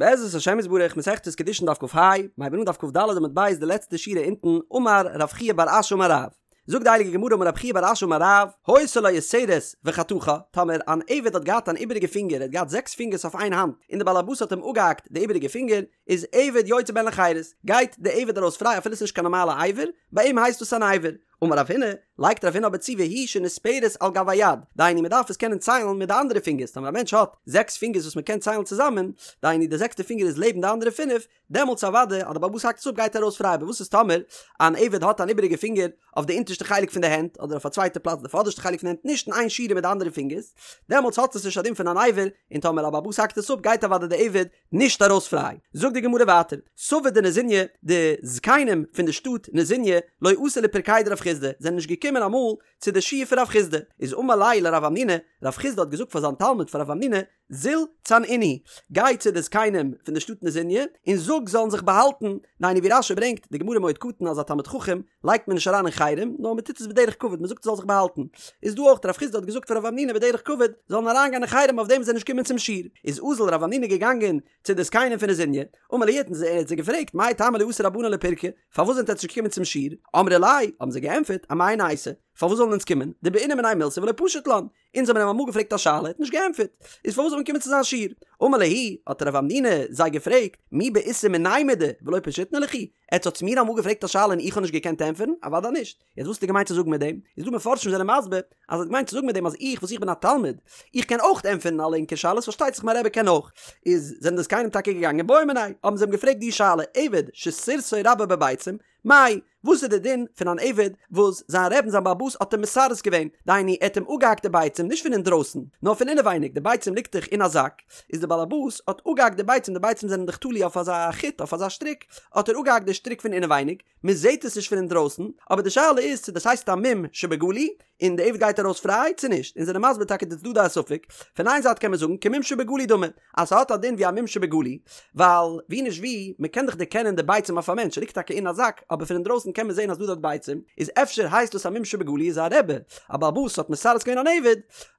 בעזרת השם יתברך מסכת קידושין דף כ"ה, מיר הייבן אן דף כ"ד עמוד ב' די לעצטע שורה אונטן, אמר רב חייא בר אשי אמר רב. זאגט די הייליגע גמרא אמר רב חייא בר אשי אמר רב, היתה לו יתרת וחתכה, טאמער אן עבד האט געהאט אן איבעריגע פינגער, ער האט געהאט זעקס פינגערס אויף איין האנט, און די בעל הבית האט אים אפגעהאקט די איבעריגע פינגער, איז עבד יוצא בהן לחירות, גייט די עבד ארויס פריי אפילו עס איז נישט קיין נארמאלע אבר, ביי אים הייסט דאס אן אבר. אמר רב הונא, לייגט רב הונא אבער צו והוא שנספרת על גב היד, דהיינו מען דארף עס קענען ציילן מיט די אנדערע פינגערס, טאמער א מענטש האט זעקס פינגערס וואס מען קען ציילן צוזאמען, דהיינו די זעקסטע פינגער איז לעבן די אנדערע פינף, דעמאלטס אוודאי אז די בעל הבית האקט עס אפ גייט ער ארויס פריי, אבער וואס איז טאמער אן עבד האט אן איבעריגע פינגער אויף די אונטערשטע חלק פון די הענט, אדער אויף א צווייטע פלאץ די פאדערשטע חלק פון די הענט נישט אין איין שורה מיט די אנדערע פינגערס, דעמאלטס האט עס נישט א דין פון אן אבר, און טאמער א בעל הבית האקט עס אפ גייט אוודאי די עבד נישט ארויס פריי. זאגט די גמרא ווייטער, סבי דנזיניא, די זקנים פון די שטאט נזיניא, לא אתו לפרקיה דרב חסדא, זענען נישט געקומען אמאל צו די שיעור פון רב חסדא, איז אמר ליה לרב המנונא, רב חסדא האט געזאגט פאר זיין תלמיד פאר רב המנונא, זיל צנעינהו, גיי צו די זקנים פון די שטאט נזיניא, און זאג זאלן זיך באהאלטן, דהיינו ווי רש"י ברענגט, די גמרא מועד קטן אז א תלמיד חכם לייגט מען נישט אריין אין חרם, נאר מען טוט עס בדרך כבוד, מען זאגט ער זאל זיך באהאלטן. איז דא אויך, רב חסדא האט געזאגט פאר רב המנונא בדרך כבוד, זאלן אריינגיין אין חרם אויף דעם זיי נישט קומען צום שיעור. איז אזל רב המנונא געגאנגען צו די זקנים פון נזיניא, אמר להו האט ער זיי געפרעגט, מאי טעמא לא אתו רבנן לפירקא, פארוואס זענט עטץ נישט געקומען צום שיעור? אמרי ליה, האבן זיי געענטפערט, אמאי ניתי, פארוואס זאלן אונז קומען, דבעינא מיניה מילתא ולא פשיט לן, אונז האבן אים אמאל געפרעגט א שאלה, ער האט נישט געענטפערט, איז פארוואס זאל מען קומען צו זיין שיעור? אמר להו, האט רב המנונא זיי געפרעגט, מי בעיתו מיני מידי ולא פשיטנא לכו, עטס האטס מיר אמאל געפרעגט א שאלה און איך האב נישט געקענט ענטפערן? אוודאי נישט. יעצט וואס האט ער געמיינט צו זאגן מיט דעם? איז דא מפרשים זענען מסביר אז ער האט געמיינט צו זאגן מיט דעם אז איך וואס איך בין א תלמיד, איך קען אויך ענטפערן אלע ענקער שאלות, פארשטייט זיך מיין רבי קען אויך. איז זענען די זקנים טאקע געגאנגען בעו מיניה, האבן זיי אים געפרעגט די שאלה, עבד שסירסו רבו בביצים, מאי, וואס איז די דין פון אן עבד וואס זיין רעבן זיין בעל הבית האט אים מסרס געווען, דהיינו ער האט אים אפגעהאקט די ביצים נישט פון אינדרויסן, נאר פון אינעווייניג, די ביצים ליגט דאך אין א זאק, איז די בעל הבית האט אפגעהאקט די ביצים, די ביצים זענען דאך תלוי אויף אזא חוט, אויף אזא שטריק, האט ער אפגעהאקט די שטריק פון אינעווייניג, מען זעט עס נישט פון אינדרויסן, אבער די שאלה איז צו דאס הייסט א מום שבגלוי, און די עבד גייט ארויס פריי צו נישט, און זענען מסביר טאקע די צדדי הספק, פון איין זייט קען מען זאגן כמום שבגלוי דמי, אז ס'האט א דין ווי א מום שבגלוי, ווייל ווי נישט ווי, מען קען דאך דערקענען די ביצים אויף א מענטש, ס'ליגט טאקע אין א זאק, אבער פון אינדרויסן קען מען זען אז דא דארט ביצים, איז אפשר הייסט דאס א מום שבגלוי איז א רבי, א בעל הבית האט מסרס געווען אן עבד,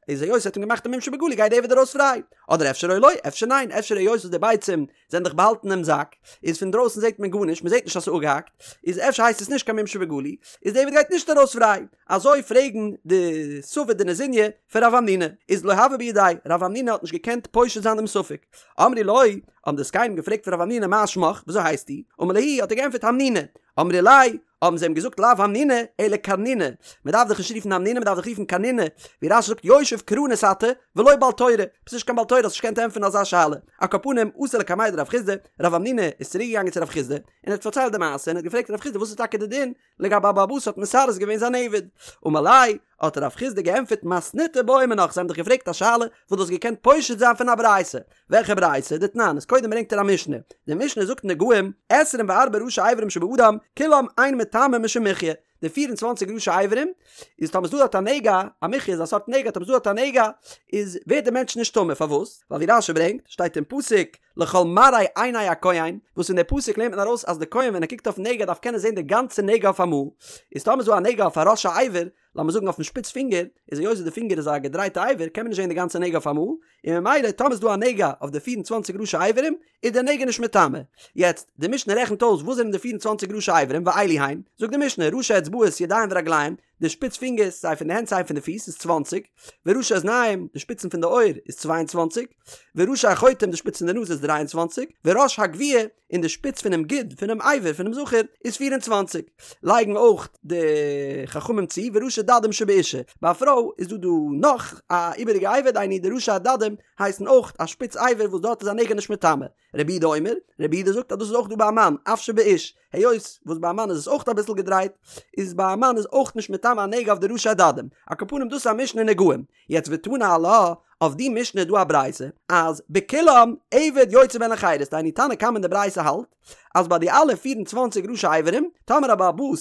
איז היות ער האט אים געמאכט א מום שבגלוי גייט די עבד ארויס פריי, אדער אפשר או לא, אפשר ניין, אפשר היות וואס די ביצים זענען דאך באהאלטן אינעם זאק, איז פון דרויסן זעט מען גארנישט, מען זעט נישט אז ס'איז אפגעהאקט, איז אפשר הייסט עס נישט קיין מום שבגלוי, איז די עבד גייט נישט ארויס פריי. אזוי פרעגן די סבי דנזיניא פון רב המנונא, איז לא הוה בידיה, רב המנונא האט נישט געקענט פושט זיין דעם ספק. אמרו לו, האבן די זקנים געפרעגט פון רב המנונא מה שמך, וויאזוי הייסטו? אמר להו, האט ער געענטפערט המנונא. אמרי ליה, האבן זיי אים געזאגט לאו המנונא, אלא קרנונא, מען דארף דיך נישט רופן המנונא, מען דארף דיך רופן קרנונא, ווי רש"י זאגט יושב קרנות אתה, ולא בעל תורה, ביסט נישט קיין בעל תורה האסט נישט געקענט ענטפערן אזא שאלה. על כל פנים, אתא לקמיה דרב חסדא, רב המנונא איז צוריק געגאנגען צו רב חסדא, און ער האט פארציילט די מעשה, און ער האט געפרעגט רב חסדא וואס איז טאקע די דין לגבי א בעל הבית האט מסרס געווען זיין עבד, אמר ליה, האט רב חסדא געענטפערט מתניתא בעו מינך, זיי האבן דיך געפרעגט א שאלה וואס דו האסט געקענט פושט זיין פון א ברייתא, וועלכע ברייתא? דתנן, איז קודם ברענגט ער א משנה, די משנה זאגט נגעים, עשרים וארבעה ראשי אברים שבאדם, כולם אין מטמאין משום מחיה, די פיר און צוואנציג ראשי אברים, איז טאמער ס'דא דארט א נגע, א מחיה איז א סארט נגע, טאמער ס'דא דארט א נגע, איז ווערט דער מענטש נישט טמא, פארוואס? ווייל ווי רש"י ברענגט, שטייט אין פסוק, לכל מראה עיני הכהן, וואס פון די פסוק לערנט מען ארויס אז די כהן ווען ער קוקט אויפן נגע דארף קענען זען די גאנצע נגע אויף אמאל, איז טאמער איז דא א נגע אויף א ראש האבר, לאמיר זאגן אויפן שפיץ פינגער, איז היות די פינגער איז א געדרייטע אבר קען מען נישט זען די גאנצע נגע אויף אמאל, און ממילא טאמער איז דא א נגע אויף די 24 ראשי אברים, איז די נגע נישט מטמא. יעצט, די משנה רעכנט אויס וואס זענען די 24 ראשי אברים, ואלו הן, זאגט די משנה, ראשי אצבעות ידיים ורגליים, די שפיץ פינגערס, סיי פון די הענט סיי פון די פיס, איז צוואנציג, וראשי אזניים, די שפיצן פון די אויער, איז 22, וראשי החוטם, די שפיץ פון די נאז איז 23, וראש הגויה, און די שפיץ פונעם גיד, פונעם אבר, פונעם זכר, איז 24. לייגן אויך די חכמים צו, וראשי דדים שבאישה. ביי א פרוי איז דא דא נאך א איבעריגע אבר, דהיינו די ראשי הדדים הייסן אויך א שפיץ אבר וואס דארט איז א נגע נישט מטמא. רבי יהודה אומר, רבי יהודה זאגט אז דאס איז אויך דא ביי א מאן, אף שבאיש, היות וואס ביי א מאן איז עס אויך אביסל געדרייט, איז ביי א מאן איז אויך נישט מטמא א נגע אויף די ראשי הדדים. על כל פנים דאס איז א משנה נגעים. יעצט ותנא עלה, אויף די משנה איז דא א ברייתא, אז בכולם עבד יוצא בהן לחירות, דהיינו תנא קמא אין די ברייתא האלט, אז ביי די אלע 24 ראשי אברים, טאמער א בעל הבית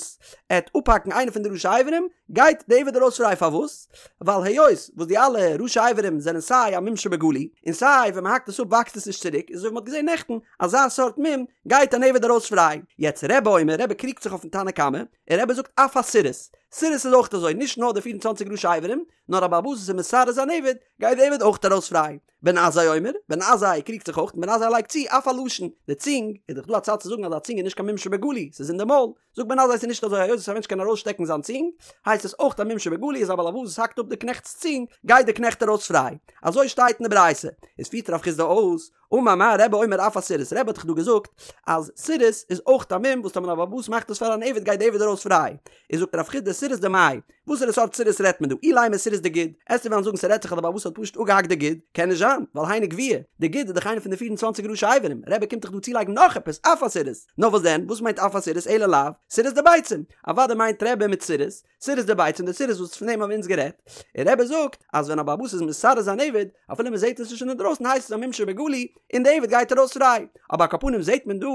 עט אפהאקן איינע פון די ראשי אברים, גייט די עבד ארויס פריי, פארוואס? ווייל היות וואס די אלע ראשי אברים זענען סיי א מום שבגלוי, און סיי ווען מ'האקט עס אפ וואקסט עס נישט צוריק, איז אזוי ווי מ'האט געזען נעכטן, אזא סארט מום גייט אן עבד ארויס פריי. יעצט רבי אומר, רבי קריגט זיך אויפן תנא קמא, און רבי זאגט אף הסירוס, סירוס איז אויך אזוי, נישט נאר די 24 ראשי אברים, נאר א בעל הבית וואס איז מסרס זיין עבד, גייט די עבד אויך ארויס פריי. בן עזאי אומר, בן עזאי קריגט זיך אויך און בן עזאי לייגט צו אף הלשון, די צונג, איז דאך דא א צד צו זאגן אז א צונג איז נישט קיין מום שבגלוי, ס'איז אין די מויל, זאגט בן עזאי ס'איז נישט אזוי היות וואס א מענטש קען ארויסשטעקן זיין צונג, הייסט עס אויך א מום שבגלוי איז א בעל הבית וואס האקט אפ די קנעכט'ס צונג, גייט די קנעכט ארויס פריי. אזוי שטייט אין די ברייתא. איז פירט רב חסדא אויס, אמר מר רבי אומר אף הסריס, רבי האט דאך דא געזאגט אז סירוס איז אויך א מום וואס טאמער א בעל הבית מאכט עס פאר אן עבד גייט די עבד ארויס פריי, איז זאגט רב חסדא סירוס דמאי, וואסערע סארט סירוס רעדט מען דא, אילימא סירוס דגיד, עסטו וועלן זאגן ס'רעדט זיך אז די בעל הבית האט פשוט אפגעהאקט די גיד, קען נישט זיין, ווייל היינו גווייה, די גיד איז דאך איינע פון די פיר און צוואנציג ראשי אברים, רבי קומט דאך דא צולייגן נאך עפעס, אף הסירוס, נאר וואס דען, וואס מיינט אף הסירוס אלא לאו, סירוס דביצים, אוודאי מיינט רבי מיט סירוס, סירוס דביצים די סירוס וואס פון דעם האבן אונז גערעדט, און רבי זאגט אז ווען א בעל הבית איז מסרס זיין עבד, אפילו מען זעט עס נישט אינדרויסן הייסט עס א מום שבגלוי, און די עבד גייט ארויס פריי. אבער על כל פנים זעט מען דא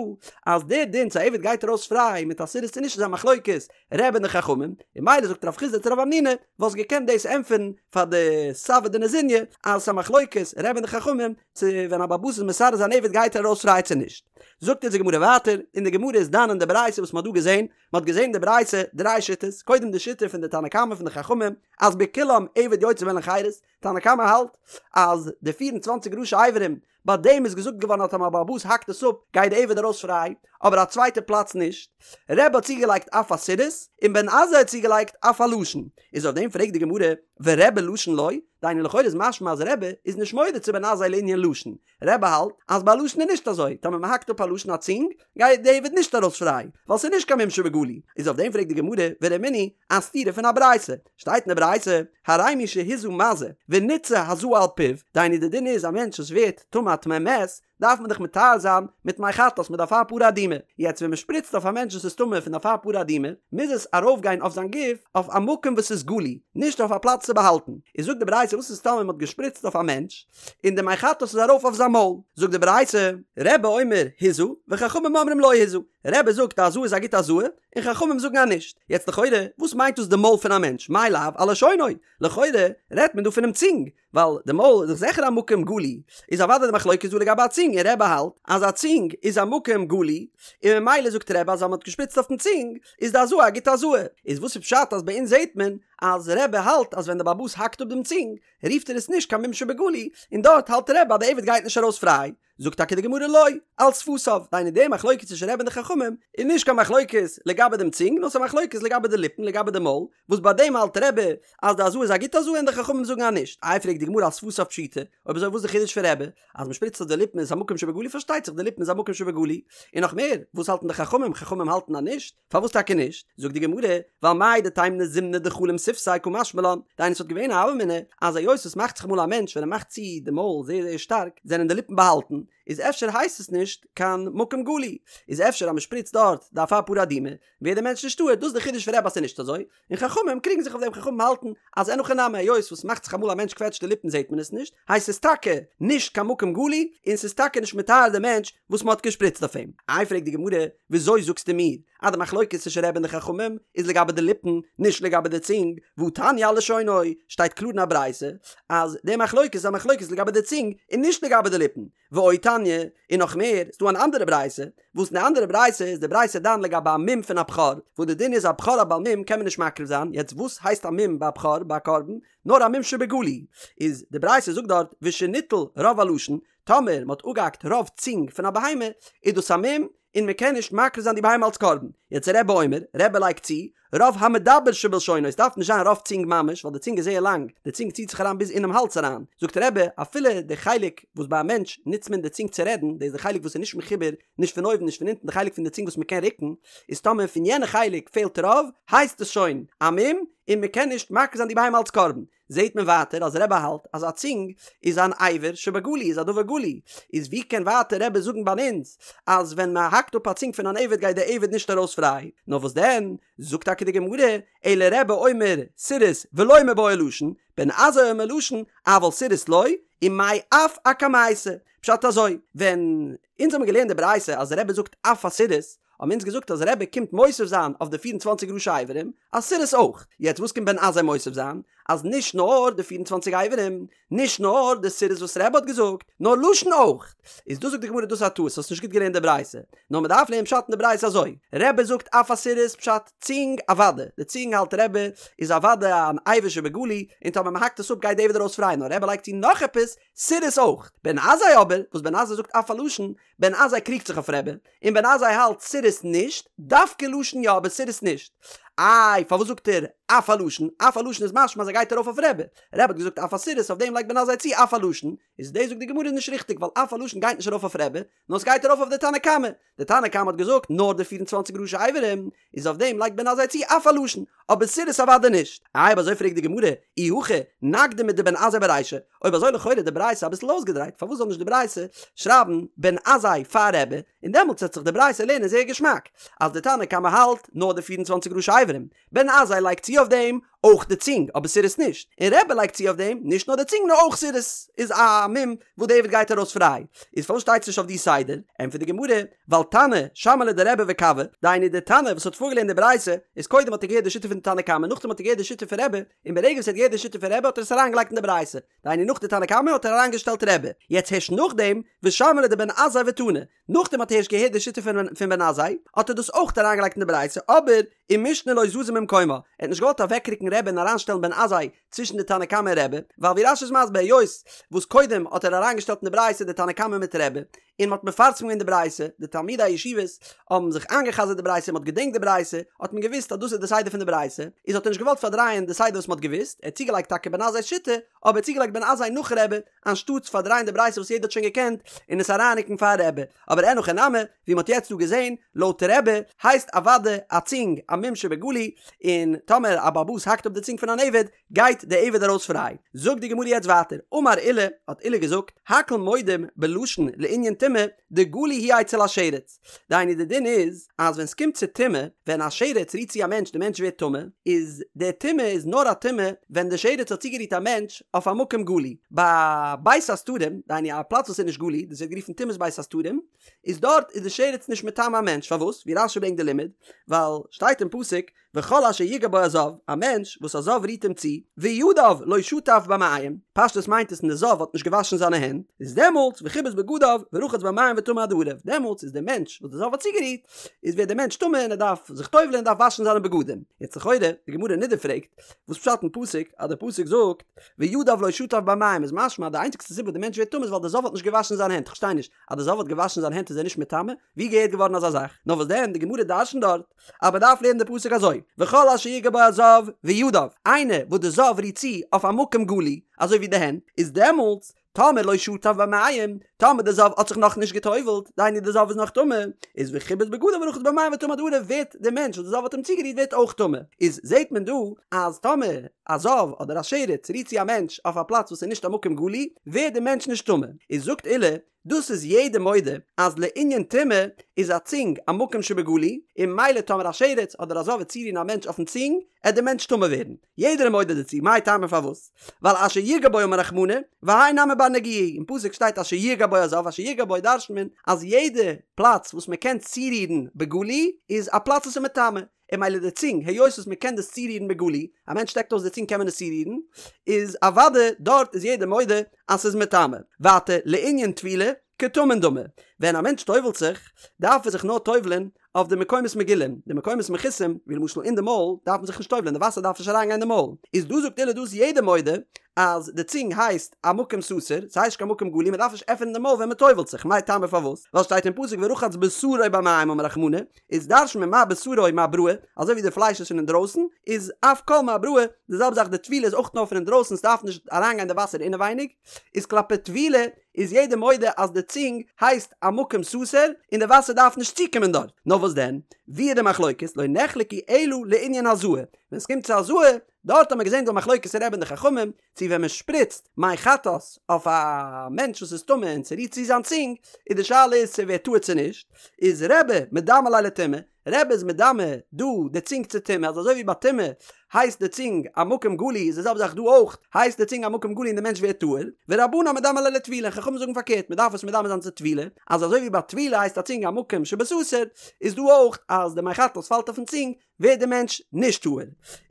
אז דער דין צו א עבד גייט ארויס פריי מיט א סירוס צו נישט איז א מחלוקת רבי און די חכמים, און ממילא זאגט רב חסדא צו רב המנונא וואלסט געקענט דאס ענטפערן פאר די סבי דנזוניא אז עס איז א מחלוקת רבי און די חכמים צו ווען א בעל הבית איז מסרס זיין עבד גייט ער ארויס פריי צו נישט. זאגט אונז די גמרא ווייטער, און די גמרא איז דן אין די ברייתא וואס מען האט דא געזען, מען האט געזען אין די ברייתא דריי שיטות, קודם די שיטה פון די תנא קמא פון די חכמים אז בכולם עבד יוצא בהן לחירות, תנא קמא האלט אז די פיר און צוואנציג ראשי אברים ביי דעם איז געזאגט געווארן אז טאמער א בעל הבית האקט עס אפ גייט די עבד ארויס פריי, אבער א צווייטע פלאץ נישט. רבי האט צוגעלייגט אף הסירוס, און בן עזאי האט צוגעלייגט אף הלשון. איז אויף דעם פרעגט די גמרא, ורבי לשון לא? דהיינו לכאורה איז משמע אז רבי איז נישט מודה צו בן עזאי לענין לשון, רבי האלט אז ביי לשון איז נישט אזוי, טאמער מען האקט אפ א לשון א צונג, גייט די עבד נישט ארויס פריי, ווייל ס'איז נישט קיין מום שבגלוי. איז אויף דעם פרעגט די גמרא, ורמינהי, א סתירה פון א ברייתא. שטייט אין די ברייתא, הרי מי שהזה מזה, ונתזה הזאה על פיו, דהיינו די דין איז א מענטש וואס ווערט טמא א טמא מת, דארף מען דאך מטהר זיין מיט מי חטאת מיט אפר פרה אדומה. יעצט ווען מען שפריצט אויף א מענטש וואס איז טמא פון אפר פרה אדומה, מוז עס ארויפגיין אויף זיין גוף אויף א מקום וואס איז גלוי, נישט אויף א פלאץ צו באהאלטן. איז זאגט די ברייתא וואס איז טאמער מען האט געשפריצט אויף א מענטש, און די מי חטאת איז ארויף אויף זיין מויל, זאגט די ברייתא, רבי אומר הזה, וחכמים אומרים לא הזה, רבי זאגט אז הזאה איז א גוטע הזאה, און חכמים זאגן אז נישט, יעצט לכאורה, וואס מיינט דאס די מויל פון א מענטש, מאי לאו על לשונו, לכאורה רעדט מען דא פונעם צונג, ווייל די מויל איז דאך זיכער א מקום גלוי, איז אוודאי די מחלוקת דא לגבי א צונג, און רבי האלט אז א צונג איז א מקום גלוי, און ממילא זאגט רבי אז אז מען האט געשפריצט אויפן צונג, איז די הזאה א גוטע הזאה, איז וואס איז פשט אז ביי אונז זעט מען אז רבי האלט אז ווען די בעל הבית האקט אפ דעם צונג, רופט ער עס נישט קיין מום שבגלוי, און דארט האלט רבי אז די עבד גייט נישט ארויס פריי, זאגט טאקע די גמרא לא, על שפתיו, דהיינו די מחלוקת צווישן רבי און די חכמים איז נישט קיין מחלוקת לגבי דעם צונג נאר ס'איז א מחלוקת לגבי די ליפן לגבי די מויל, וואס ביי דעם האלט רבי אז די הזאה איז א גוטע הזאה און די חכמים זאגן אז נישט, איי פרעגט די גמרא על שפתיו פשיטא, אויב אזוי וואס איז די חידוש פון רבי אז מ'שפריצט אויף די ליפן איז א מקום שבגלוי פארשטייט זיך די ליפן איז א מקום שבגלוי, און נאך מער וואס האלטן די חכמים, חכמים האלטן אז נישט. פארוואס טאקע נישט? זאגט די גמרא, ווייל מהו דתימא זימנא דחלים שפתיה קא משמע לן, דהיינו ס'וואלט געווען א הוה אמינא אז היות עס מאכט זיך אמאל א מענטש ווען ער מאכט צו די מויל זייער זייער שטארק זענען די ליפן באהאלטן, איז אפשר הייסט עס נישט קיין מקום גלוי, איז אפשר אז מ'שפריצט דארט די אפר פרה אדומה ווערט די מענטש נישט טהור, דאס איז די חידוש פון רבי אז ס'איז נישט אזוי, און חכמים קריגן זיך אויף דעם חכמים האלטן אז אין הכי נמי היות וואס מאכט זיך אמאל א מענטש קוועטשט די ליפן זעט מען עס נישט הייסט עס טאקע נישט קיין מקום גלוי און ס'איז טאקע נישט מטהר די מענטש וואס מ'האט געשפריצט אויף אים. איי פרעגט די גמרא וויאזוי זאגסטו מיר אז די מחלוקת צווישן רבי און די חכמים איז לגבי די ליפן נישט לגבי די צונג והתניא על לשונו שטייט קלאר אין א ברייתא אז די מחלוקת איז א מחלוקת לגבי די צונג און נישט לגבי די ליפן ועוד תניא, און נאך מער, ס'דא אן אנדערע ברייתא, וואס אין די אנדערע ברייתא איז די ברייתא דן לגבי א מום פון א בכור, וואס די דין איז א בכור א בעל מום קען מען נישט מקריב זיין, יעצט וואס הייסט א מום ביי א בכור ביי א קרבן? נאר א מום שבגלוי, איז די ברייתא זאגט דארט ושניטל רוב הלשון, טאמער מ'האט אפגעהאקט רוב צונג פון א בהמה, איז דאס א מום, און מ'קען נישט מקריב זיין די בהמה אלס קרבן. יעצט רבי אומר, רבי לייגט צו, רוב המדבר שבלשונו, עס דארף נישט זיין רוב צונג ממש, ווייל די צונג איז זייער לאנג, די צונג ציט זיך אריין ביז אינעם האלז אריין, זאגט רבי, אפילו די חלק וואס ביי א מענטש נוצט מען די צונג צו רעדן, דאס איז די חלק וואס איז נישט מחובר נישט פון אויבן נישט פון אונטן, די חלק פון די צונג וואס מען קען רוקן, איז טאמער פון יענע חלק פעלט רוב, הייסט עס שוין א מום, און מען קען נישט מקריב זיין די בהמה אלס קרבן. זעהט מען ווייטער אז רבי האלט אז א צונג איז אן אבר שבגלוי איז א דבר גלוי, איז ווי קען ווייטער רבי זאגן ביי אונז אז ווען מען האקט אפ א צונג פון אן עבד גייט די עבד נישט ארויס פריי, נאר וואס דען זאגט טאקע די גמרא אלא רבי אומר סירוס ולא מיבעיא לשון, בן עזאי אומר לשון אבל סירוס לא, ומאי אף אקמייתא, פשט אזוי, ווען אונז האבן געלערנט די ברייתא אז רבי זאגט אף הסירוס, האבן אונז געזאגט אז רבי קומט מוסיף זיין אויף די פיר און צוואנציג ראשי אברים אז סירוס אויך, יעצט וואס קומט בן עזאי מוסיף זיין? אז נישט נאר די פיר און צוואנציג אברים, נישט נאר די סירוס וואס רבי האט געזאגט, נאר לשון אויך. איז דא זאגט די גמרא דאס איז א טעות, האסט נישט גוט געלערנט די ברייתא, נאר מען דארף לערנען פשט אין די ברייתא אזוי, רבי זאגט אף הסירוס פשט צונג אוודאי, די צונג האלט רבי איז אוודאי אן אבר שבגלוי, און טאמער. טאמער מען האקט עס אפ גייט די עבד ארויס פריי נאר רבי לייגט צו נאך עפעס סירוס אויך. בן עזאי אבער, וואס בן עזאי זאגט אף הלשון, בן עזאי קריגט זיך אויף רבי, און בן עזאי האלט סירוס נישט, דווקא לשון יא אבער סירוס נישט. איי פארוואס זאגט ער אף הלשון? אף הלשון איז משמע אז ער גייט ארויף אויף רבי. רבי האט געזאגט אף הסירוס אויף דעם לייגט בן עזאי צו אף הלשון, איז דאס זאגט די גמרא איז נישט ריכטיג ווייל אף הלשון גייט נישט ארויף אויף רבי, נאר עס גייט ארויף אויף די תנא קמא, די תנא קמא האט געזאגט נאר די פיר און צוואנציג ראשי אברים, איז אויף דעם לייגט בן עזאי צו אף הלשון, אבער סירוס אוודאי נישט. איי אויב אזוי פרעגט די גמרא, אי הכי נקדים מדבן עזאי ברישא, אויב אזוי לכאורה די ברייתא אביסל אויסגעדרייט, פארוואס זאל נישט די ברייתא שרייבן בן עזאי פאר רבי, און דעמאלטס וועט זיך די ברייתא לערנען זייער געשמאק, אז די תנא קמא האלט נאר די פיר און צוואנציג ראשי אברים, בן עזאי לייגט צו אויף דעם אויך די צונג, אבער סירוס נישט, און רבי לייגט צו אויף דעם נישט נאר די צונג נאר אויך סירוס איז א מום וואס די עבד גייט ארויס פריי, איז פארוואס שטייט עס נישט אויף די סדר? ענטפערט די גמרא, ווייל תנא שמע ליה דרבי וקבעה, דהיינו די תנא וואס האט פארגעלערנט די ברייתא, איז קודם האט ער געהערט די שיטה פון די תנא קמא נאכדעם האט ער געהערט די שיטה פון רבי, און ברגע וואס ער האט געהערט די שיטה פון רבי האט ער עס אריינגעלייגט אין די ברייתא, דהיינו נאך די תנא קמא האט ער אריינגעשטעלט רבי, יעצט הערשט נאכדעם ושמע ליה דבן עזאי ותנא, נאכדעם האט ער הערשט געהערט די שיטה פון בן עזאי, האט ער דאס אויך אריינגעלייגט אין די ברייתא, אבער ומשנה לא זזה ממקומה, ער האט נישט געוואלט אוועקרוקן רבי און אריינשטעלן בן עזאי צווישן די תנא קמא און רבי, ווייל ווי רש"י איז מסביר היות וואס קודם האט ער אריינגעשטעלט אין די ברייתא די תנא קמא מיט רבי, און מ'האט מפרסם געווען די ברייתא, די תלמידי הישיבות האבן זיך איינגע'חזר'ט די ברייתא און מ'האט געדענקט די ברייתא, האט מען געוואוסט אז דאס איז די סדר פון די ברייתא, איז האט ער נישט געוואלט פארדרייען די סדר וואס מ'האט געוואוסט, ער האט צוגעלייגט טאקע בן עזאי'ס שיטה, אבער ער האט צוגעלייגט בן עזאי נאך רבי, אנשטאטס פארדרייען די ברייתא וואס יעדער האט שוין געקענט און עס אריינרוקן פאר רבי. אבער אין הכי נמי, ווי מ'האט יעצט דא געזען, לויט רבי הייסט אוודאי א צונג א מום שבגלוי, און טאמער א בעל הבית האקט אפ די צונג פון אן עבד, גייט די עבד ארויס פריי. זאגט די גמרא יעצט ווייטער, אמר עולא, האט עולא געזאגט, הכל מודים בלשון לענין טומאה, דגלוי הוא אצל השרץ. דהיינו די דין איז, אז ווען ס'קומט צו טומאה, ווען א שרץ רירט צו א מענטש די מענטש ווערט טמא, איז די טומאה איז נאר א טומאה ווען די שרץ האט צוגערירט א מענטש אויף א מקום גלוי. ביי בית הסתרים, דהיינו א פלאץ וואס איז נישט גלוי, דאס ווערט גערופן טומאת בית הסתרים, איז דארט איז די שרץ נישט מטמא א מענטש, פארוואס? ווי רש"י ברענגט די לימוד, ווייל שטייט אין פסוק, וכל אשר יגע בו הזב, א מענטש וואס א זב רירט אים צו, וידיו לא שטף במים, פשטות מיינט עס און די זב האט נישט געוואשן זיינע הענט, איז דעמאלטס וכיבס בגדיו ורחץ במים וטמא עד הערב, דעמאלטס איז דער מענטש וואס די זב האט צוגערירט, איז ווערט דער מענטש טמא און ער דארף זיך טובל'ען און דארף וואשן זיינע בגדים. יעצט לכאורה, די גמרא אין נדה פרעגט, וואס פשט אין פסוק, אז דער פסוק זאגט, וידיו לא שטף במים איז משמע אז די איינציגסטע סיבה וואס די מענטש ווערט טמא איז ווייל די זב האט נישט געוואשן זיינע הענט, כ'פארשטיי נישט, אז די זב האט געוואשן זיינע הענט איז ער נישט מטמא? ווי געהערט געווארן אזא זאך? נאר וואס דען, די גמרא דרש'נט דארט, אז מען דארף לערנען די פסוק אזוי, וכל אשר יגע בו הזב וידיו, איינער וואס די זב רירט צו אויף א מקום גלוי, אזוי ווי די הענט, איז דעמאלטס, טאמער לא שטף במים, טאמער די זב האט זיך נאך נישט גע'טובל'ט, דהיינו די זב איז נאך טמא, איז וכיבס בגדיו ורחץ במים וטמא עד הערב ווערט די מענטש וואס די זב האט אים צוגערירט ווערט אויך טמא. איז זעט מען דא אז טאמער א זב אדער א שרץ רירט צו א מענטש אויף א פלאץ וואס איז נישט א מקום גלוי, ווערט די מענטש נישט טמא. איז זאגט עולא, דאס איז יעדער מודה אז לענין טומאה איז א צונג א מקום שבגלוי, און ממילא טאמער א שרץ אדער א זב וועט צורירן א מענטש אויפן צונג, עט די מענטש טמא ווערן. יעדער איז מודה דערצו, מאי טעמא פארוואס? ווייל אשר יגע בו אמר רחמנא, והאי נמי בר נגיעה, אין פסוק שטייט אשר יגע בו הזב, אשר יגע בו דרש'נט מען אז יעדע פלאץ וואס מען קען צורירן בגלוי איז א פלאץ וואס איז מטמא, און ממילא די צונג, היות וואס מען קען דאס צורירן בגלוי, א מענטש שטעקט אויס די צונג קען מען עס צורירן, איז אוודאי דארט איז יעדער מודה אז ס'איז מטמא. ווייטער, לענין טבילה, כטמון דמי, ווען א מענטש טובל'ט זיך, דארף ער זיך נאר טובל'ען אויף די מקומות מגולים, די מקומות מכוסים, ווי למשל אין די מויל, דארף מען זיך נישט טובל'ען, די וואסער דארף נישט אריינגיין אין די מויל. איז דא זאגט עולא דא איז יעדער מודה אז די צונג הייסט א מקום סתור, ס'הייסט נישט קיין מקום גלוי, מ'דארף נישט עפענען די מויל ווען מ'טובל'ט זיך, מאי טעמא פארוואס? ווייל שטייט אין פסוק ורחץ בשרו במים אמר רחמנא, איז דרש'נט מען מה בשרו מאבראי, אזוי ווי די פלייש איז פון אינדרויסן, איז אף כל מאבראי, די זעלבע זאך די טבילה איז אויך נאר פון אינדרויסן ס'דארף נישט אריינגיין די וואסער אינעווייניג, איז כלפי טבילה איז יעדער מודה אז די צונג הייסט א מקום סתור און די וואסער דארף נישט צוקומען דארט, נאר וואס דען, ווי איז די מחלוקת, לא נחלקו אלא לענין הזאה, ווען ס'קומט צו הזאה, דארט האט מען געזען דא מחלוקת רבי און די חכמים, צו ווען מען שפריצט מי חטאת אויף א מענטש וואס איז טמא און ס'רירט צו זיין צונג, איז די שאלה איז צו ער ווערט טהור צו נישט, איז רבי מדמי ליה לטומאה, רבי איז מדמה דא די צונג צו טומאה, אז אזוי ווי ביי טומאה הייסט די צונג א מקום גלוי איז די זעלבע זאך דא אויך, הייסט די צונג א מקום גלוי און די מענטש ווערט טהור, ורבנן מדמי ליה לטבילה, חכמים זאגן פארקערט מען דארף עס מדמה זיין צו טבילה, אז אזוי ווי ביי טבילה הייסט א צונג א מקום שבסתר, איז דא אויך אז די מי חטאת פאלט אויפן צונג, ווערט די מענטש נישט טהור.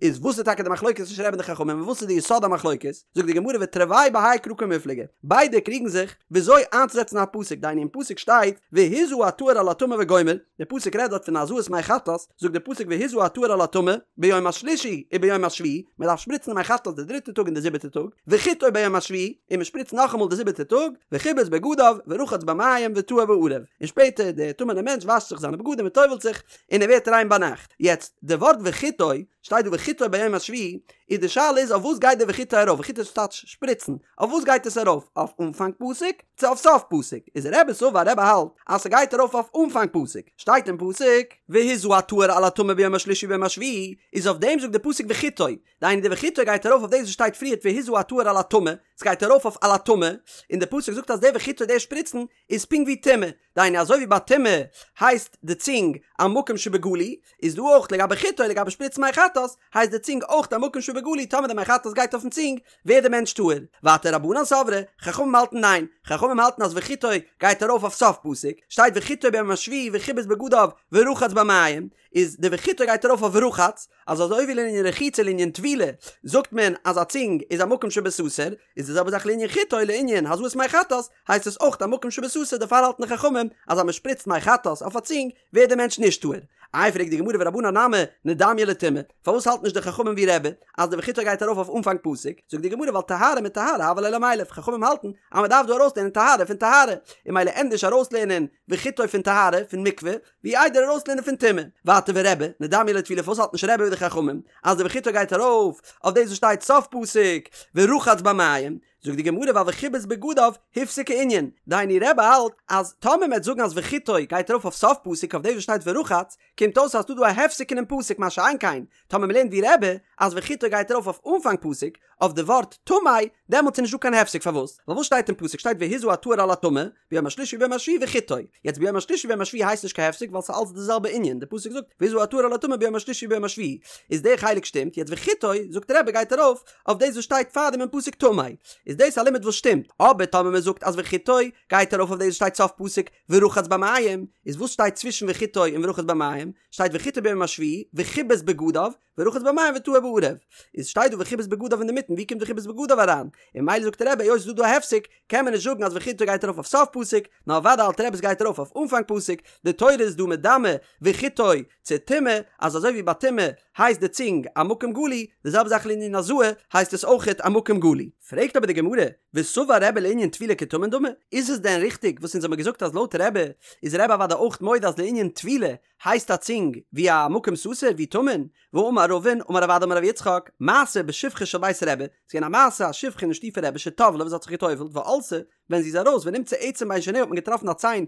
איז וואס איז טאקע די מחלוקת צווישן רבי און די חכמים און וואס איז די יסוד המחלוקת? זאגט די גמרא ותרוייהו בהאי קרא קמיפלגי, ביידע קריגן זיך וויאזוי איינצוזעצן א פסוק, דהיינו אין פסוק שטייט והזה הטהור על הטמא וגומר, די פסוק רעדט דארט פון הזאת מי חטאת, זאגט די פסוק והזה הטהור על הטמא ביום השלישי וביום השביעי, מען דארף שפריצן די מי חטאת די דריטע טאג און די זיבעטע טאג, וחיטוי ביום השביעי, און מען שפריצט נאכאמאל די זיבעטע טאג, וכיבס בגדיו, ורחץ במים וטהר בערב, און שפעטער דער טמא'נער מענטש וואשט זיך זיינע בגדים און טובל'ט זיך, און ער ווערט ריין ביינאכט. יעצט, די ווארט וחיטוי, שטייט דא וחיטוי ביום השביעי, איז די שאלה איז אויף וואס גייט די וחיטוי ארויף, וחיטוי טייטש שפריצן, אויף וואס גייט עס ארויף, אויף אנפאנג פסוק, צו אויף סוף פסוק, איז רבי סבר רבי האלט אז ס'גייט ארויף אויף אנפאנג פסוק, שטייט אין פסוק, והזה הטהור על הטמא ביום השלישי וביום השביעי, איז אויף דעם זאגט די פסוק וחיטוי, דהיינו די וחיטוי גייט ארויף אויף דאס וואס שטייט פריערט והזה הטהור על הטמא, ס'גייט ארויף אויף על הטמא, און די פסוק זאגט אז די וחיטוי די שפריצן איז פונקט ווי טומאה, דהיינו אזוי ווי ביי טומאה הייסט די צונג א מקום שבגלוי, איז דא אויך לגבי חיטוי לגבי שפריצן מי חטאת, הייסט די צונג אויך א מקום שבגלוי טאמער די מי חטאת גייט אויפן צונג ווערט די מענטש טהור. ווייטער רבנן סברי, חכמים האלטן ניין, חכמים האלטן אז וחיטוי גייט ארויף אויף סוף פסוק, שטייט וחיטוי ביום השביעי וכיבס בגדיו ורחץ במים, איז די וחיטוי גייט ארויף אויף ורחץ, אז אזוי ווי לענין רחיצה לענין טבילה זאגט מען אז א צונג איז א מקום שבסתר, איז די זעלבע זאך לענין חיטוי לענין הזאת מי חטאת, הייסט עס אויך א מקום שבסתר דערפאר האלטן די חכמים אז אז מען שפריצט מי חטאת אויף א צונג ווערט די מענטש נישט טהור. איי פרעגט די גמרא ורבנן נמי נדמייה לטומאה, פארוואס האלט נישט די חכמים ווי רבי אז די וחיטוי גייט ארויף אויף אנפאנג פסוק, זאגט די גמרא ווייל טהרה מטהרה הוה ליה למילף, חכמים האלטן אז מען דארף דא ארויסלערנען טהרה פון טהרה, און ממילא ענדערש ארויסלערנען וחיטוי פון טהרה פון מקווה, ווי איידער ארויסלערנען פון טומאה. ווייטער ורבי, נדמייה לטבילה פארוואס האלט נישט רבי ווי די חכמים אז די וחיטוי גייט ארויף אויף דאס וואס שטייט סוף פסוק ורחץ במים, זאגט די גמרא ווייל וכיבס בגדיו הפסיק הענין, דהיינו רבי האלט אז טאמער מ'עט זאגן אז וחיטוי גייט ארויף אויף סוף פסוק אויף דאס וואס שטייט ורחץ, קומט אויס אז ס'דא דא א הפסק אינעם פסוק מה שאין כן טאמער מ'לערנט ווי רבי אז וחיטוי גייט ארויף אויף אנפאנג פסוק אויף די ווארט טמא, דעמאלטס איז נישט דא קיין הפסק פארוואס? ווייל וואס שטייט אין פסוק שטייט והזה הטהור על הטמא ביום השלישי וביום השביעי וחיטוי, יעצט ביום השלישי וביום השביעי הייסט נישט קיין הפסק ווייל ס'איז אלץ די זעלבע ענין, די פסוק זאגט והזה הטהור על הטמא ביום השלישי וביום השביעי, איז די חלק שטימט, יעצט וחיטוי זאגט רבי גייט ארויף אויף דאס וואס שטייט פארדעם אין פסוק טמא, איז דאס א לימוד וואס שטימט, אבער טאמער מען זאגט אז וחיטוי גייט ארויף אויף דאס וואס שטייט סוף פסוק ורחץ במים, איז וואס שטייט צווישן וחיטוי און ורחץ במים? שטייט וחיטוי ביום השביעי וכיבס בגדיו ורחץ במים וטהר בערב, איז שטייט דא וכיבס בגדיו אינדערמיטן, ווי קומט וכיבס בגדיו אריין? און ממילא זאגט רבי היות ס'איז דא דא א הפסק, קען מען נישט זאגן אז וחיטוי גייט ארויף אויף סוף פסוק, נאר אוודאי האלט רבי ס'גייט ארויף אויף אנפאנג פסוק, די תורה איז דא מדמה וחיטוי צו טומאה, אז אזוי ווי ביי טומאה הייסט די צונג א מקום גלוי, די זעלבע זאך לענין הזאה הייסט עס אויכעט א מקום גלוי. פרעגט אבער די גמרא, וסבר רבי לענין טבילה כטמון דמי, איז עס דען ריכטיג וואס אונז האמיר געזאגט אז לויט רבי איז רבי אוודאי אויך מודה אז לענין טבילה הייסט א צונג ווי א מקום סתר ווי טמון, והאמר רבין אמר רב אדא אמר רב יצחק, מעשה בשפחה של בית רבי, ס'איז געווען א מעשה א שפחה אין שטוב פון רבי שטבלה וואס האט זיך געטובלט ועלתה, ווען זי איז ארויס ונמצא עצם בין שיניה האט מען געטראפן א ציין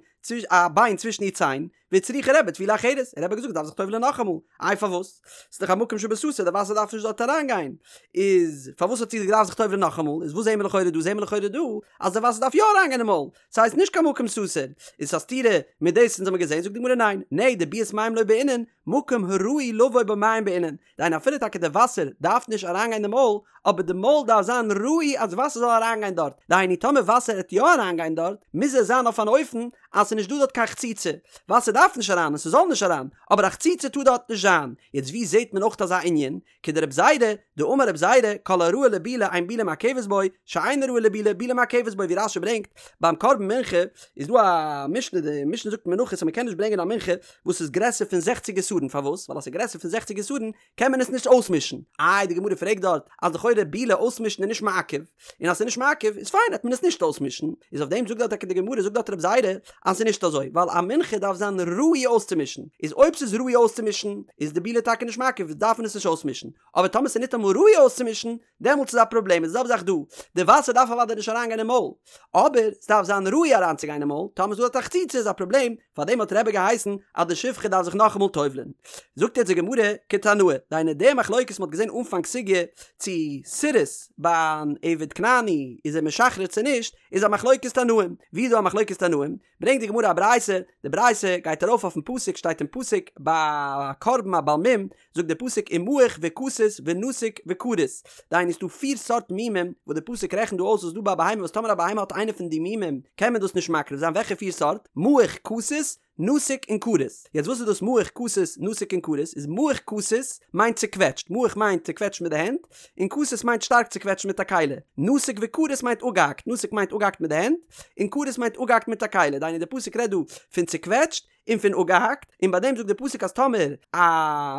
א ביין צווישן איר ציין, והצריכה רבי טבילה אחרת, און רבי האט געזאגט דארף זיך טובל'ען נאכאמאל, איי פארוואס? ס'איז דאך א מקום שבסתר די וואסער דארף נישט דארט אריינגיין, איז פארוואס האט זי געדארפט זיך טובל'ען נאכאמאל, איז וואס זעהן מיר לכאורה דא? זעהן מיר לכאורה דא אז די וואסער דארף יא אריינגיין אין מויל, ס'הייסט נישט קיין מקום סתר, איז א סתירה מיט דאס אונז האמיר געזעהן, זאגט די גמרא ניין, נהי דביאת מים לא בעינן, מקום הראוי לבוא בו מים בעינן, דהיינו אפילו טאקע די וואסער דארף נישט אריינגיין אין די מויל, אבער די מויל דארף זיין ראוי אז וואסער זאל אריינגיין דארט, דהיינו טאמער וואסער העט יא אריינגיין דארט, מוז עס זיין אויף אן אופן אז ס'איז נישט דא דארט קיין חציצה, וואסער דארף נישט אריין און ס'זאל נישט אריין, אבער א חציצה טאר דארט נישט זיין, יעצט ווי זעהט מען אויך אזא ענין? כדרב זירא, דאמר רב זירא, כל הראוי לבילה אין בילה מעכבת בו, שאינו ראוי לבילה, בילה מעכבת בו, ווי רש"י ברענגט, ביים קרבן מנחה איז דא א משנה, די משנה זאגט אין מנחות אז מ'קען נישט ברענגען א מנחה וואס איז גרעסער פון זעכציג עשרון, פארוואס? ווייל אז ס'איז גרעסער פון זעכציג עשרון קען מען עס נישט אויסמישן. איי די גמרא פרעגט דארט אז לכאורה בילה אויסמישן איז נישט מעכב, און אז ס'איז נישט מעכב איז פיין העט מען עס נישט אויסמישן, איז אויף דעם זאגט דארט טאקע די גמרא זאגט דארט רב זירא אז ס'איז נישט אזוי ווייל א מנחה דארף זיין ראוי אויסצומישן, איז אויב ס'איז ראוי אויסצומישן איז די בילה טאקע נישט מעכב דארף מען עס נישט אויסמישן, אבער טאמער ס'איז ניטאמאל ראוי אויסצומישן דעמאלטס איז א פראבלעם, איז די זעלבע זאך דא, די וואסער דארף אוודאי נישט אריינגיין אין מויל, אבער ס'דארף זיין ראוי אריינצוגיין אין מויל, טאמער ס'איז דא דארט א חציצה איז א פראבלעם, פארדעם האט רבי געהייסן אז די שפחה דארף זיך נאכאמאל טובל'ען. זאגט יעצט די גמרא, כתנאי, דהיינו די מחלוקת מ'האט געזען אנפאנג סוגיא צו סירוס ביי אן עבד כנעני איז ער משחרר צו נישט, איז א מחלוקת תנאים, ווי איז דא א מחלוקת תנאים? ברענגט די גמרא א ברייתא, די ברייתא גייט ארויף אויפן פסוק, שטייט אין פסוק ביי א קרבן א בעל מום, זאגט דער פסוק ומעוך וכתות ונתוק וכרות, דהיינו ס'דא פיר סארט מומים וואס דער פסוק רעכנט דא אויס וואס איז דא ביי א בהמה וואס טאמער א בהמה האט איינע פון די מומים קען מען דאס נישט מקריב זיין, וועלכע פיר סארט? מעוך כתות, נתוק און כרות. יעצט וואס איז דאס מעוך כתות, נתוק און כרות? איז מעוך כתות מיינט צוקוועטשט, מעוך מיינט צוקוועטשט מיט די הענט, און כתות מיינט שטארק צוקוועטשט מיט א כלי, נתוק וכרות מיינט אפגעהאקט, נתוק מיינט אפגעהאקט מיט די הענט, און כרות מיינט אפגעהאקט מיט א כלי, דהיינו דער פסוק רעדט דא פון צוקוועטשט, און פון אפגעהאקט, און ביי דעם זאגט די פסוק אז טאמער א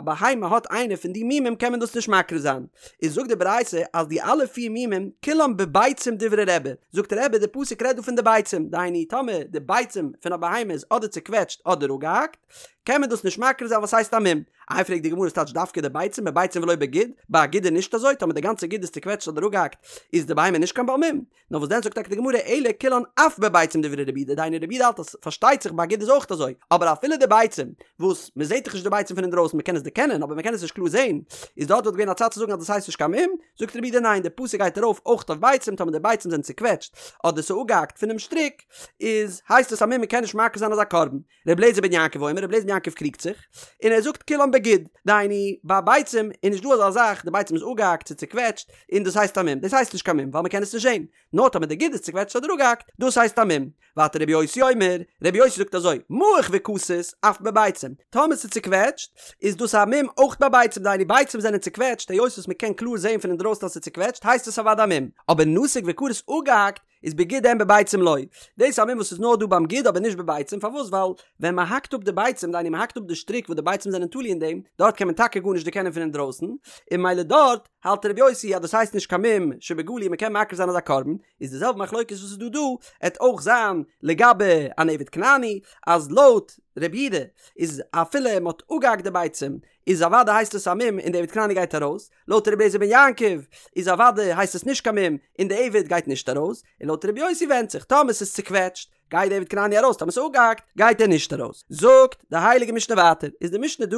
בהמה האט איינע פון די מומים קען מען דאס נישט מקריב זיין, איז זאגט די ברייתא אז די אלע פיר מומים כולם בביצים דברי רבי, זאגט רבי די פסוק רעדט דא פון די ביצים, דהיינו טאמער די ביצים פון א בהמה איז אדער צוקוועטשט אדער אפגעהאקט, קען מען דאס נישט מקריב זיין ווייל ס'הייסט א מום. איי פרעגט די גמרא ס'טייטש דווקא די ביצים בביצים ולא בגיד, ביי א גיד איז נישט אזוי, טאמער די גאנצע גיד איז צוקוועטשט אדער אפגעהאקט איז די בהמה נישט קיין בעל מום, נאר וואס דען זאגט טאקע די גמרא אלא כולן אף בביצים דברי רבי יהודה דהיינו רבי יהודה האלט אז פארשטייט זיך ביי א גיד איז אויך אזוי אבער אפילו די ביצים וואס מען זעט דאך נישט די ביצים פון אינדרויסן מען קען עס דערקענען אבער מען קען עס נישט קלאר זען איז דארט וואלט געווען א צד צו זאגן אז דאס הייסט נישט קיין מום זאגט רבי יהודה ניין די פסוק גייט ארויף אויך אויף ביצים טאמער די ביצים זענען צוקוועטשט אדער ס'איז אפגעהאקט פונעם שטריק איז הייסט עס א מום מען קען נישט מקריב זיין אזא קרבן ר' אליעזר בן יעקב אומר, ר' אליעזר בן יעקב קריגט זיך, און ער זאגט כולם בגיד, דהיינו, ביי ביצים איז נישט דא אזא זאך, די ביצים איז אפגעהאקט צו צוקוועטשט, און דאס הייסט א מום, דאס הייסט נישט קיין מום, ווייל מען קען עס נישט זען, נאר טאמער די גיד איז צוקוועטשט אדער אפגעהאקט, דאס הייסט א מום. ווייטער רבי יוסי אומר, רבי יוסי זאגט אזוי, מעוך וכתות, אף בביצים, טאמער ס'איז צוקוועטשט, איז דאס א מום אויך ביי ביצים, דהיינו ביצים זענען צוקוועטשט, היות וואס מען קען קלאר זען פון אינדרויסן אז ס'איז צוקוועטשט, הייסט עס אוודאי א מום, אבער נתוק וכרות אפגעהאקט, איז בגיד אין בביצים לא. דאס איז א מום וואס איז נאר דא ביים גיד אבער נישט בביצים, פארוואס? ווייל ווען מען האקט אפ די ביצים, דהיינו מען האקט אפ די שטריק וואס די ביצים זענען תלוי אין דעם, דארט קען מען טאקע גארנישט דערקענען פון אינדרויסן, און ממילא דארט האלט רבי יוסי אז דאס הייסט נישט קיין מום שבגלוי מען קען מקריב זיין אזא קרבן, איז די זעלבע מחלוקת וואס איז דא דא, עט אויך זיין לגבי אן עבד כנעני, אז לויט רבי יהודה איז אפילו מען האט אפגעהאקט די ביצים איז אוודאי הייסט עס א מום און די עבד כנעני גייט ארויס, לויט רבי אליעזר בן יעקב איז אוודאי הייסט עס נישט קיין מום און די עבד גייט נישט ארויס, און לויט רבי יוסי ווענדט זיך, טאמער ס'איז צוקוועטשט גייט די עבד כנעני ארויס טאמער ס'איז אפגעהאקט גייט ער נישט ארויס. זאגט די הייליגע משנה ווייטער, איז די משנה דא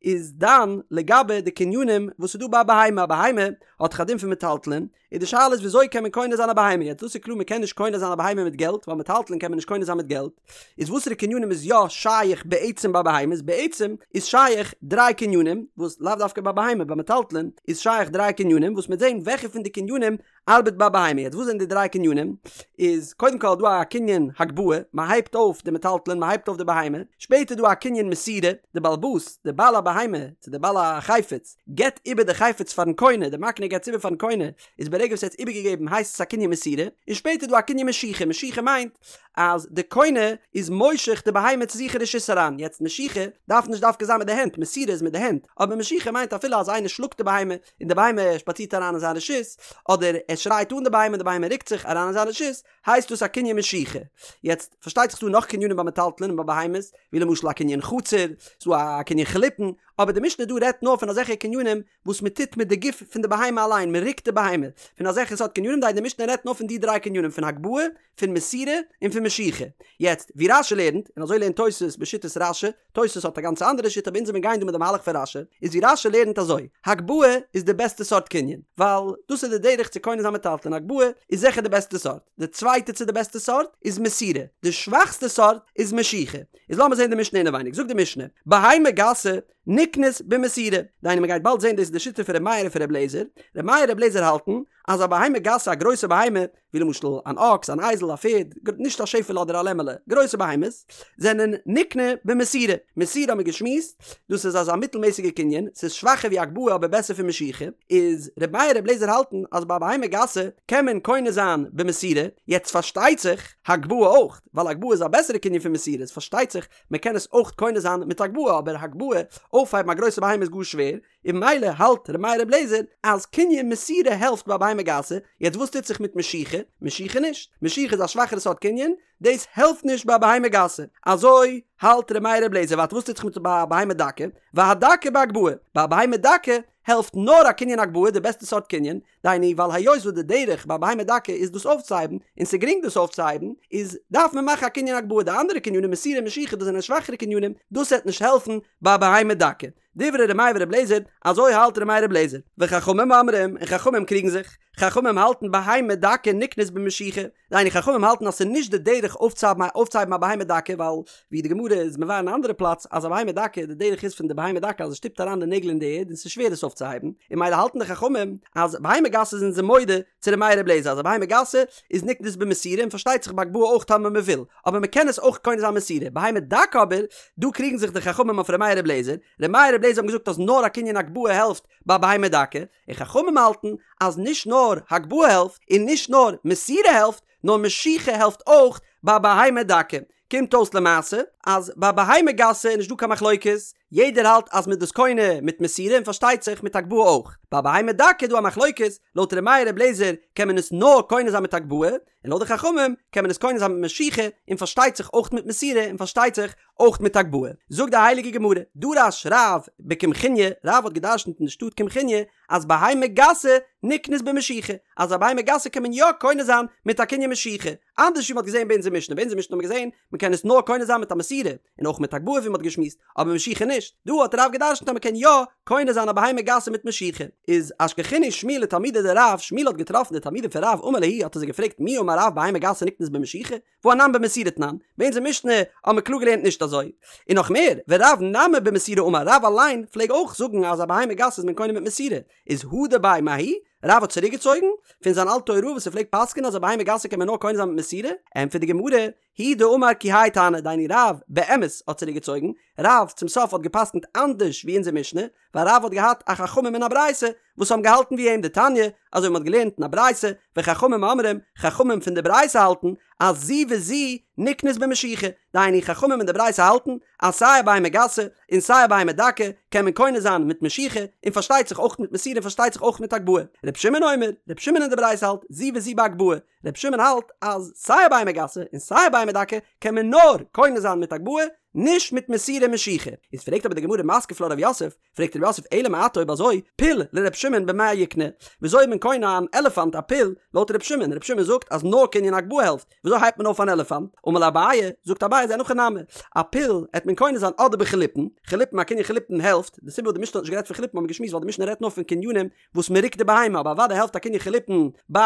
איז דן לגבי די קנינים וואס איז דא ביי א בהמה, א בהמה האט דאך א דין פון מטלטלין, און די שאלה איז וויאזוי קען מען קונה זיין א בהמה, יעצט דאס איז קלאר מען קען נישט קונה זיין א בהמה מיט געלט, ווייל מטלטלין קען מען נישט קונה זיין מיט געלט, איז וואסערע קנינים איז יא שייך בעצם ביי בהמות, בעצם איז שייך דריי קנינים, וואס לאו דווקא ביי בהמה, ביי מטלטלין איז שייך דריי קנינים, וואס מ'עט זען וועלכע פון די קנינים ארבעט ביי בהמה, יעצט וואס זענען די דריי קנינים, איז קודם כל דא א קנין הגבהה, מען הייבט אויף די מטלטלין, מען הייבט אויף די בהמה, שפעטער דא א קנין מסירה, די בעל הבית, די בעל הבהמה, צו די בעל החפץ, געבט איבער די חפץ פארן קונה, די מקנה געבט עס איבער פארן קונה, איז ברגע וואס ער האט עס איבערגעגעבן הייסט עס א קנין מסירה, און שפעטער דא א קנין משיכה, משיכה מיינט אז די קונה איז מושך די בהמה צו זיך אין רשות אריין, יעצט משיכה דארף נישט דווקא זיין מיט די הענט, מסירה איז מיט די הענט, אבער משיכה מיינט אפילו אז איינער שלאגט די בהמה און די בהמה שפאצירט אריין אין זיין רשות, אדער ער שרייט אן די בהמה און די בהמה רוקט זיך אריין אין זיין רשות, הייסט דאס א קנין משיכה. יעצט, פארשטייט זיך ס'דא נאך קנינים ביי מטלטלין און ביי בהמות, ווי למשל א קנין חצר, ס'דא א קנין חליפין, אבער די משנה דא רעדט נאר פון אזעלכע קנינים וואס מען טוט מיט די גוף פון די בהמה אליין, מען רוקט די בהמה, פון אזעלכע סארט קנינים, דהיינו די משנה רעדט נאר פון די דריי קנינים, פון הגבהה, פון מסירה, און פון משיכה. יעצט, ווי רש"י לערנט, און אזוי לערנט תוס' בשיטת רש"י, תוס' האט א גאנץ אנדערע שיטה אבער אונז וועלן גיין דא מיט די מהלך פון רש"י, איז ווי רש"י לערנט אזוי, הגבהה איז די בעסטע סארט קנין, ווייל דאס איז די דרך צו קונה זיין מטלטלין, הגבהה איז זיכער די בעסטע סארט, די צווייטע צו די בעסטע סארט איז מסירה, די שוואכסטע סארט איז משיכה. איז לאמיר זען די משנה אינעווייניג, זאגט די משנה, בהמה גסה נקנית במסירה, דהיינו מען גייט באלד זען דאס איז די שיטה פון ר' מאיר און פון ר' אליעזר, ר' מאיר און ר' אליעזר האלטן אז א בהמה גסה א גרויסע בהמה, ווי למשל אן אקס, אן אייזל, א פערד, נישט א שעפעלע אדער א לעמעלע, גרויסע בהמות, זענען נקנה במסירה. מסירה האבן מיר געשמועסט, דאס איז אזא מיטלמעסיגע קנין, ס'איז שוואכער ווי הגבהה אבער בעסער פון משיכה, איז ר' מאיר ר' אליעזר האלטן אז ביי א בהמה גסה קען מען קונה זיין במסירה, יעצט פארשטייט זיך, הגבהה אויך, ווייל הגבהה איז א בעסערע קנין פון מסירה, איז פארשטייט זיך מען קען עס אויך קונה זיין מיט הגבהה, אבער הגבהה, אויפהייבן א גרויסע בהמה איז גאר שווער, און ממילא האלט ר' מאיר ר' אליעזר אז קנין מסירה העלפט ביי בהמה גסה, יעצט וואס טוט זיך מיט משיכה? משיכה נישט, משיכה איז א שוואכערע סארט קנין, דאס העלפט נישט ביי בהמה גסה, אזוי האלט ר' מאיר ר' אליעזר, ווייטער וואס טוט זיך מיט ביי בהמה דקה? והדקה בהגבהה, ביי בהמה דקה העלפט נאר א קנין הגבהה, די בעסטע סארט קנין, דהיינו ווייל היות וואס די דרך ביי בהמה דקה איז דאס אויפצוהייבן, און ס'איז גרינג דאס אויפצוהייבן, איז דארף מען מאכן א קנין הגבהה, די אנדערע קנינים מסירה משיכה דאס זענען שוואכערע קנינים, דאס וועט נישט העלפן ביי בהמה דקה. דברי ר' מאיר ור' אליעזר, אזוי האלט ר' מאיר ר' אליעזר. וחכמים אומרים, און חכמים קריגן זיך, חכמים האלטן בהמה דקה נקנית במשיכה, דהיינו חכמים האלטן אז ס'איז נישט די דרך אויפצוהייבן א בהמה דקה, ווייל ווי די גמרא איז מבאר אין א אנדערע פלאץ אז א בהמה דקה, די דרך איז פון די בהמה דקה אז עס שטופט אריין די נעגל אין די ערד און ס'איז שווער עס אויפצוהייבן, און ממילא האלטן די חכמים אז בהמה גסה זענען זיי מודה צו ר' מאיר ר' אליעזר אז א בהמה גסה איז נקנית במסירה און פארשטייט זיך בהגבהה אויך טאמער מ'וויל, אבער מ'קען עס אויך קונה זיין מסירה, בהמה דקה אבער, דא קריגן זיך די חכמים אויף ר' מאיר ר' אליעזר, ר' מאיר ר' אליעזר האבן געזאגט אז נאר א קנין הגבהה העלפט ביי בהמה דקה, און חכמים האלטן אז נישט נאר הגבהה העלפט און נישט נאר מסירה העלפט, נאר משיכה העלפט אויך ביי בהמה דקה. קומט אויס למעשה. אז ביי בהמה גסה איז נישט דא קיין מחלוקת, יעדער האלט אז מ'איז דאס קונה מיט מסירה און פארשטייט זיך מיט הגבהה אויך. ביי בהמה דקה איז דא א מחלוקת, לויט ר' מאיר ר' אליעזר קען מען עס נאר קונה זיין מיט הגבהה, און לויט די חכמים קען מען עס קונה זיין מיט משיכה און פארשטייט זיך אויך מיט מסירה און פארשטייט זיך אויך מיט הגבהה. זאגט די הייליגע גמרא, דרש רב בקמחוניא, רב האט געדרשנט אין די שטאט קמחוניא אז בהמה גסה נקנית במשיכה, אז א בהמה גסה קען מען יא קונה זיין מיט א קנין משיכה, אנדערש ווי מ'האט געזען ביי אונזער משנה, ביי אונזער משנה האט מען געזען מ'קען עס נאר קונה זיין מיט א מסירה, און אויך מיט הגבהה ווי מ'האט געשמועסט, אבער משיכה נישט, דא האט רב געדרשנט אז מ'קען יא קונה זיין א בהמה גסה מיט משיכה. איז אשכחינהו שמואל לתלמידיה דרב, שמואל האט געטראפן די תלמידים פון רב אמר להו האט ער זיי געפרעגט מי אמר רב בהמה גסה נקנית במשיכה, והא אנן במסירה תנן, ביי אונזער משנה האט מען קלאר געלערנט נישט אזוי. און נאך מער, ורב נמי במסירה אמר, רב אליין פלעג אויך זאגן אז א בהמה גסה איז מען קונה מיט מסירה, איז הדר ביה מההיא, רב האט צוריקגעצויגן פון זיין אלטע הוראה וואס ער פלעגט פסק'ענען אז א בהמה גסה קען מען נאר קונה זיין מיט מסירה, ענטפערט די גמרא, הוא דאמר כי האי תנא, דהיינו רב באמת האט צוריקגעצויגן, רב צום סוף האט געפסקנט אנדערש ווי אונזער משנה, ווייל רב האט געהאט א חכמים אין א ברייתא וואס האבן געהאלטן ווי אים דתניא, אזוי ווי מ'האט געלערנט אין א ברייתא, וחכמים אומרים, חכמים פון די ברייתא האלטן אז זו וזו נקנית במשיכה, דהיינו חכמים אין די ברייתא האלטן אז סיי א בהמה גסה און סיי א בהמה דקה קען מען קונה זיין מיט משיכה, און פארשטייט זיך אויך מיט מסירה און פארשטייט זיך אויך מיט הגבהה. ר' שמעון אומר, ר' שמעון אין די ברייתא האלט זו וזו בהגבהה, ר' שמעון האלט אז סיי א בהמה גסה און סיי א בהמה דקה קען מען נאר קונה זיין מיט הגבהה, נישט מיט מסירה משיכה. איז פרעגט אבער די גמרא מתקיף לה רב יוסף, פרעגט רב יוסף אלא מעתה אויב אזוי פיל לר' שמעון במאי יקנה, וויאזוי איז מען קונה אן עלעפאנט א פיל לויט ר' שמעון, ר' שמעון זאגט אז נאר קנין הגבהה העלפט, וויאזוי הייבט מען אויף אן עלעפאנט? אמר ליה אביי, זאגט אביי אז אין הכי נמי, א פיל העט מען קונה זיין אדער בחליפין, חליפין א קנין חליפין העלפט, די סיבה וואס די משנה האט נישט גערעדט פון חליפין האבן מיר געשמועסט ווייל די משנה רעדט נאר פון קנינים וואס מען רוקט די בהמה, אבער אוודאי העלפט א קנין חליפין ביי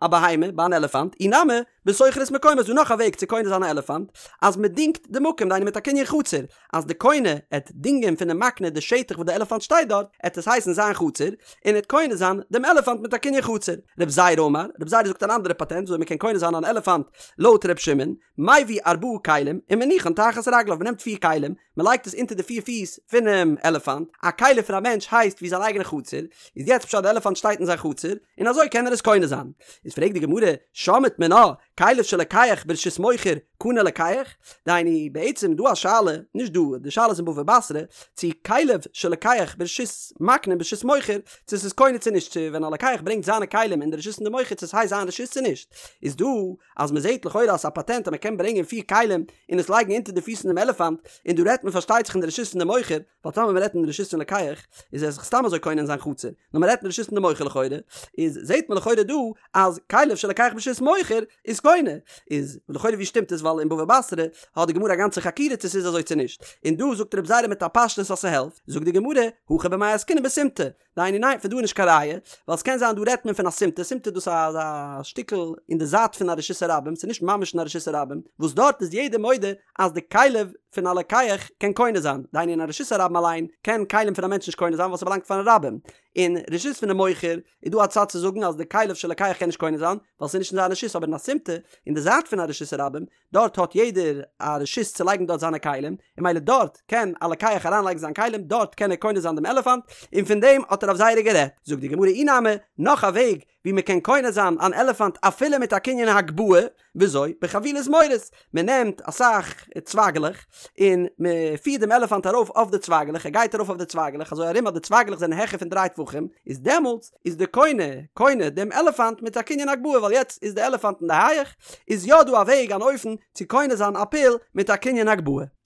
א בהמה, ביי אן עלעפאנט, אי נמי, בשוכר את מקומו איז דא נאך א וועג צו קונה זיין א עלעפאנט, אז מען דינגט די מקום, דהיינו מיט א קנין חצר, אז די קונה עט דינגען פונעם מקנה די שטח וואס די עלעפאנט שטייט דארט, עט עס הייסן זיין חצר, און עט קונה זיין דעם עלעפאנט מיט א קנין חצר. רב זירא אמר, רב זירא זאגט אן אנדערע פאטענט וויאזוי מען קען קונה זיין אן עלעפאנט לויט ר' שמעון, מביא ארבעה כלים ומניחן תחת רגליו, מען נעמט פיר כלים, מען לייגט עס אונטער די פיר פיס פונעם עלעפאנט, א כלי פון א מענטש הייסט ווי זיין אייגענע חצר, איז יעצט פשט די עלעפאנט שטייט אין זיין חצר, און אזוי קען ער עס קונה זיין. איז פרעגט די גמרא, שמעת מינה, כליו של לוקח ברשות מוכר, קנה לוקח? דהיינו, בעצם דא א שאלה, נישט דא, די שאלה איז אין בבא בתרא, צו כליו של לוקח ברשות מקנה ברשות מוכר, צו ס'איז קונה צו נישט, צו ווען א לוקח ברענגט זיינע כלים אין די רשות פון די מוכר צו ס'הייסט זיין רשות צו נישט, איז דא אז מ'זעהט לכאורה אז ס'איז א פאטענט אז מ'קען ברענגען פיר כלים און עס לייגן אונטער די פיס פון דעם עלעפאנט, און דא רעדט מען פארשטייט זיך אין די רשות פון די מוכר, ווייל טאמער מ'רעדט אין די רשות פון לוקח איז ער זיך סתם אזוי קונה אין זיין חצר, נאר מ'רעדט אין די רשות פון די מוכר לכאורה, איז זעהט מען לכאורה דא אז כליו של לוקח ברשות מוכר איז קונה, איז לכאורה ווי שטימט עס ווייל אין בבא בתרא האט די גמרא א גאנצע חקירה צו ס'איז אזוי צו נישט, און דא זאגט רב זירא מיט א פשטות אז ס'העלפט, זאגט די גמרא, הכא במאי עסקינן בסימטא, דהיינו ניין פון דא איז נישט קיין ראיה, ווייל ס'קען זיין דא רעדט מען פון א סימטא, סימטא דאס איז אזא שטיקל אין די זייט פון א רשות הרבים, ס'איז נישט ממש אין א רשות הרבים, וואס דארט איז יעדער מודה אז די כליו פון א לוקח קען קונה זיין, דהיינו אין א רשות הרבים אליין קען כלים פון א מענטש נישט קונה זיין ווייל ס'באלאנגט פארן רבים, אין רשות פונעם מוכר איז דא א צד צו זאגן אז די כליו של לוקח קען נישט קונה זיין ווייל ס'איז נישט אין זיין רשות אבער אין א סימטא אין די זייט פון א רשות הרבים דארט האט יעדער א רשות צו לייגן דארט זיינע כלים און ממילא דארט קען א לוקח אריינלייגן זיין כלים דארט קען ער קונה זיין דעם עלעפאנט און פון דעם האט רב זירא גערעדט. זאגט די גמרא אי נמי, נאך א וועג ווי מען קען קונה זיין אן עלעפאנט אפילו מיט א קנין הגבהה, וויאזוי? בחבילי זמורות, מען נעמט אסאך צווייגלעך און מען פירט דעם עלעפאנט ארויף אויף די צווייגלעך, ער גייט ארויף אויף די צווייגלעך אזוי ארום אז די צווייגלעך זענען העכער פון דריי טפחים, איז דעמאלטס איז די קונה קונה דעם עלעפאנט מיט א קנין הגבהה ווייל יעצט איז די עלעפאנט אין די הייעך, איז יא דא א וועג אן אופן צו קונה זיין א פיל מיט א קנין הגבהה.